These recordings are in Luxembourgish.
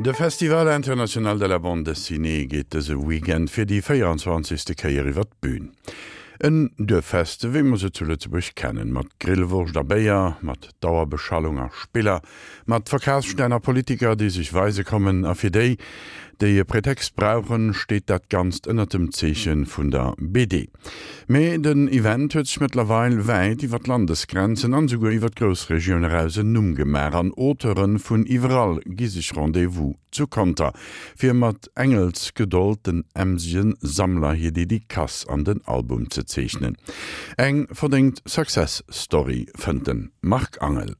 De Festival International de la Bande Dessinée geet dëse Weekend fir déi 24. Kéier iwwer d'Bün. En Duerffest, wéi mer se zu Lëtzebuerg kennen, mat Grillwurscht a Béier, mat Dauerbeschallung a Spiller, mat Verkafsstänn a Politiker, déi sech weise kommen. A fir déi, déi e Pretext brauchen, steet dat Ganzt ënnert dem Zeeche vun der BD. Mee den Event huet sech mëttlerweil wäit iwwer d'Landesgrenzen an esouguer iwwer d'Groussregioun eraus en Numm gemaach an Auteure vun iwwerall gi sech Rendez-vous zu Conter, fir mat Engelsgedold den emsege Sammler hir Dedicace an den Album ze zeechnen. Eng verdéngt Success Story, fënnt de Marc Angel.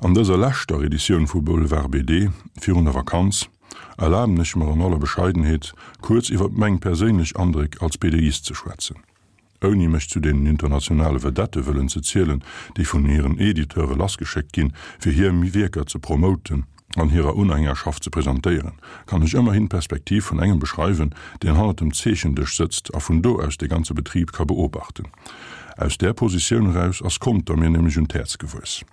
An dëser leschter Editioun vu Boulevard BD virun der Vakanz erlaben ech mer an aller Bescheidenheet, kuerz iwwer meng perséinlech Andréck als BDist ze schwätzen. Ouni mech zu deenen internationale Vedette wëllen ze zielen, déi vun hiren Editeure lassgeschéckt ginn, fir hir Wierker ze promoten an hirer Unhängerschaft ze presentéieren, kann ech ëmmerhin d'Perspektiv vun engem beschreiwen, deen hannert dem Zeechendësch sëtzt a vun do aus de ganze Betrib ka beobachten. Aus där Positioun eraus ass Conter mir nämlech un d'Häerz gewuess.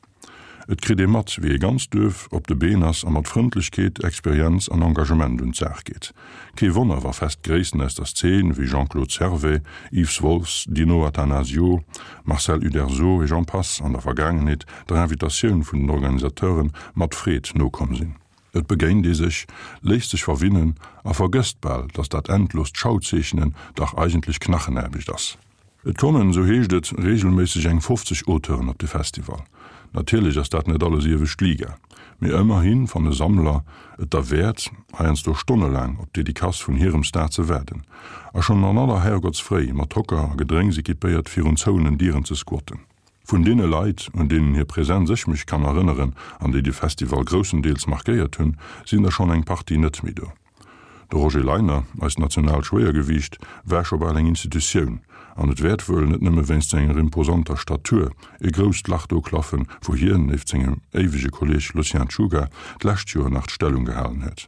Et kritt ee mat, wéi e ganzt Duerf op de Been ass a mat Frëndlechkeet, Experienz an Engagement un d'Saach geet. Kee Wonner, wa fest Gréissten aus der Szene wéi Jean-Claude Servais, Yves Wolffs, Dino Attanasio, Marcel Uderzo et j'en passe an der Vergaangenheet der Invitatioun vun den Organisateure mat Freed nokomm sinn. Et begéint ee sech, léisst sech verwinnen a vergësst bal, datt dat endlost Schauzeechnen dach eigentlech Knachenaarbecht ass. Et kommen, esou heescht et, reegelméisseg eng 50 Auteuren op de Festival. Natierlech ass dat net alles iewescht Liga, mee ëmmerhi fanne Sammler et derwäert, heiansdo stonnelaang op d'Dedicace vun hirem Star ze waarden a schonn an aller Herrgottsfréi mat Hocker a Gedrénks equipéiert virun zouenen Dieren ze squatten. Vun deene Leit, un deenen hir Präsenz ech mech kann erënneren an déi de Festival groussendeels markéiert hunn, sinn der schonn eng Partie net méi do. De Roger Leiner, eist nationaalt Schwéiergewiicht, war scho bal eng Institutioun, an et wäert wuel, net nëmme wéinst senger imposanter Statur, e grousst Lach do klaffen, wou hien, nieft sengem éiwege Kolleeg Lucien Czuga, d'lescht Joer nach d'Stellung gehalen huet.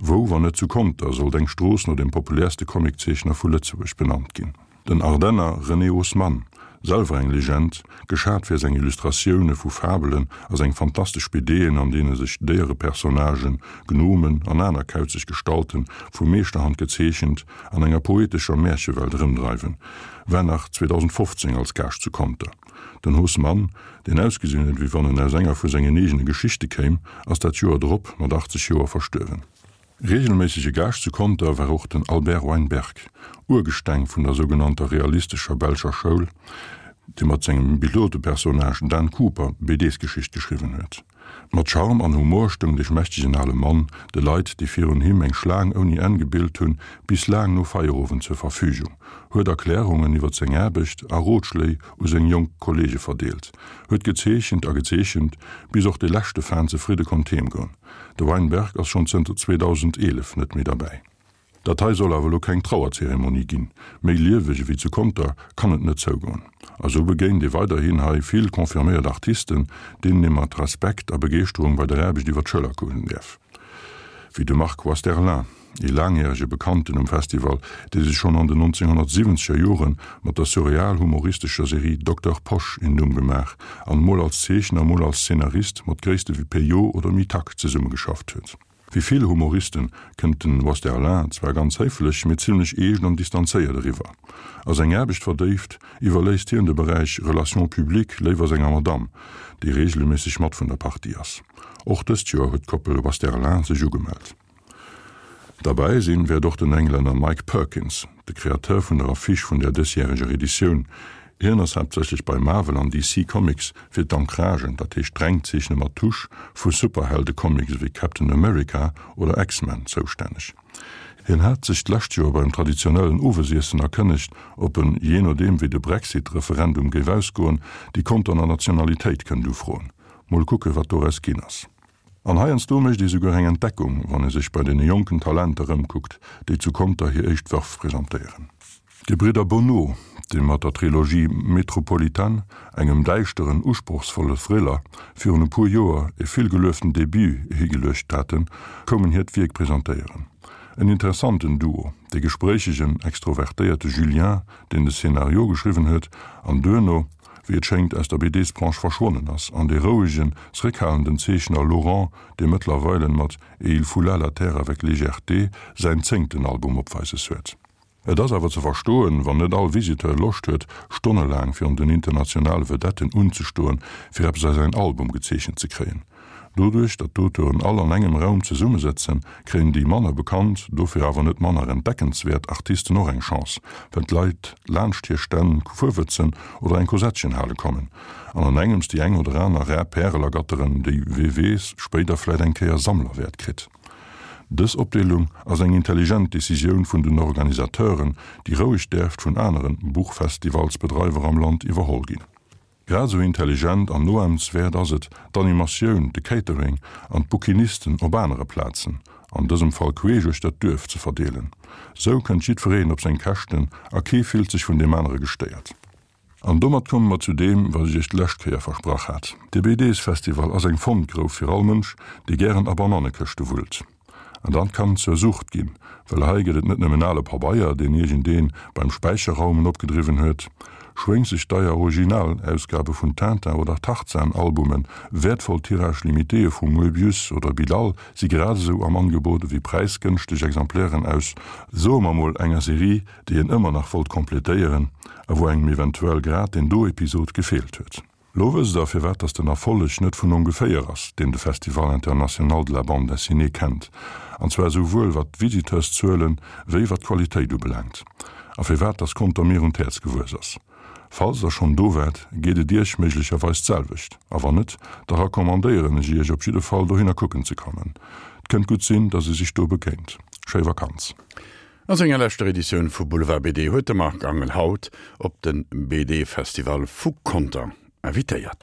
Wou, wann net zu Conter, sollt eng Strooss no dem populäerste Comiczeechner vu Lëtzebuerg benannt ginn? Den Ardenner René Haussmann, selwer eng Legend, geschat fir seng Illustratioune vu Fabelen a seng fantastesch BDen, an deene sech Déierepersonnagen, Gnomen an aner kauzeg Gestalten, vu Meeschterhand gezeechent, an enger poetescher Märchewelt erëmdreiwen, war nach 2015 als Gaascht zu Conter. Den Haussmann, deen ausgesinn huet, wéi wann en aus enger vu sengen eegene Geschichte kéim, ass dat Joer drop mat 80 Joer verstuerwen. Reegelméissege Gaascht zu Conter war och den Albert Weinberg, Urgesteng vun der sougenannter realistescher belscher Schoul, dee mat sengem Pilotepersonnage Dan Cooper BDs-Geschicht geschriwwen huet. Mat Charme an Humor stoung dee schmächtegen ale Mann de Leit, déi virun him eng Schlaang ouni Enn gebilt hunn, bis laang no Feierowend zur Verfügung, huet Erklärungen iwwer seng Aarbecht a Rotschléi u seng jonk Kolleege verdeelt, huet gezeechent a gezeechent, bis och de leschte Fan zefridde konnt heemgoen. De Weinberg ass schonn zënter 2011 net méi derbäi. Dat hei soll awer elo keng Trauerzeremonie ginn. Méi lieweg ewéi zu Conter kann et net zougoen. A sou begéint ee weiderhin hei vill confirméiert Artisten, deenen ee mat Respekt a Begeeschterung bei der Aarbecht iwwer d'Schëller kucken däerf. Wéi de Marc Wasterlin. Ee laangjärege Bekannten um Festival, dee sech schonn an den 1970er Jore mat der surreal-humoristescher Serie Dokter Posch een Numm gemaach an mol als Zeechner, mol als Szenarist mat Gréisste wéi Peyo oder Mitac zesummegeschafft huet. Wéi vill Humoriste kënnt den Wasterlin zwar ganz héiflech, mee zimmlech eescht an distanzéiert eriwwer. A seng Aarbecht verdéift, iwwerléisst hien de Beräich Relations publiques léiwer senger Madamm, déi reegelméisseg mat vun der Partie ass. Och dëst Joer huet d'Koppel Wasterlin sech ugemellt. Derbäi sinn wäert och den Englänner Mike Perkins, de Kreateur vun der Affiche vun der dësjäreger Editioun. Hien ass haaptsächlech bei Marvel an DC Comics fir d'Ancragen, dat heescht d'Rengzeechne mat Tusch, vu Superheldecomics ewéi Captain America oder X-Men zoustänneg. Hien hat sech d'lescht Joer beim traditionellen Owesiessen erkënnegt, ob en, jee nodeem wéi de Brexit-Referendum géif ausgoen, déi Conterner Nationalitéit kënnt ufroen. Mol kucke wat doraus ginn ass. An heiansdo mécht ee souguer eng Entdeckung, wann ee sech bei deene jonken Talenter ëmkuckt, déi zu Conter hir éischt Wërf presentéieren. D'Gebridder Bonnot, déi mat der Trilogie Metropolitan, engem däischteren, usprochsvolle Thriller, virun e puer Joer e vill gelueften Debut higeluecht haten, koumen hiert Wierk presentéieren. En interessanten Duo, de gespréichegen, extrovertéierte Julien, deen de Szenario geschriwwen huet, an duerno. wéi et schéngt, aus der BDsbranche verschwonnen ass, an dee rouegen, zréckhalenden Zeechner Laurent, dee mëttlerweilen mat Et il foula la terre avec légèreté säin zéngten Album opweises huet. Et ass awer ze verstoen, wann net all Visiteur Loscht huet, stonnelaang virun den internationale Vedetten unzestoen, fir eppes a säin Album gezeechent ze kréien. Doduerch, datt d'Auteuren all an engem Raum zesummesëtzen, kréien déi manner bekannt, dofir awer net manner entdeckenswäert Artisten och eng Chance, well d'Leit laanscht hir Stänn fuerwëtzen oder eng Kosettchen hale kommen an an engems déi eng oder aner rar Pärel ergatteren, déi, wee weess, spéider vläit eng Kéier Sammlerwäert kritt. Dës Opdeelung ass eng intelligent Decisioun vun den Organisateuren, déi roueg däerft vun aneren Buchfestivalsbedreiwer am Land iwwerholl ginn. Grad esou intelligent an noahmenswäert ass et, d'Animatioun, de Catering an d'Bouquinisten op anere Plazen, an dësem Fall queesch uechter d'Duerf, ze verdeelen. Sou kënnt jiddwereen op seng Käschten a kee fillt sech vun deem anere gestéiert. An domat komme mer zu deem, wat ech iech d'lescht Kéier versprach hat. De BDs-Festival ass eng Fondgrouf fir all Mënsch, dee gären a Banannekëschte wullt. An dat kann zur Sucht ginn, well hei gëtt et net nëmmen ale Pabeier, deen iergendeen beim Späicherraumen opgedriwwen huet. Schwéngseg deier Originalausgabe vun Tintin oder Tarzan-Albumen, wäertvoll Tirage-limitéë vu Moebius oder Bilal si grad esou am Angebot ewéi präisgënschteg Exemplairen aus, soe mer mol, enger Serie, déi een ëmmer nach wollt completéieren a wou engem eventuell grad deen do Episod gefeelt huet. Lo wësst der, firwat dass den Erfolleg net vun ongeféier ass, deen de Festival International de la Bande Dessinée kennt, an zwar esouwuel wat d'Visiteurszuelen wéi wat d'Qualitéit ubelaangt, a firwat dass Conter mir un d'Häerz gewuess ass. Falls der schonn do waart, geet et iech méiglecherweis d'selwecht, a wann net, da recommandéieren ech iech op jidde Fall dohinner kucken ze kommen. 't kënnt gutt sinn, dass ee sech do begéint. Schéi Vakanz! A senger leschter Editioun vu Boulevard BD huet de Marc Angel haut op de BD-Festival vu Conter invitéiert.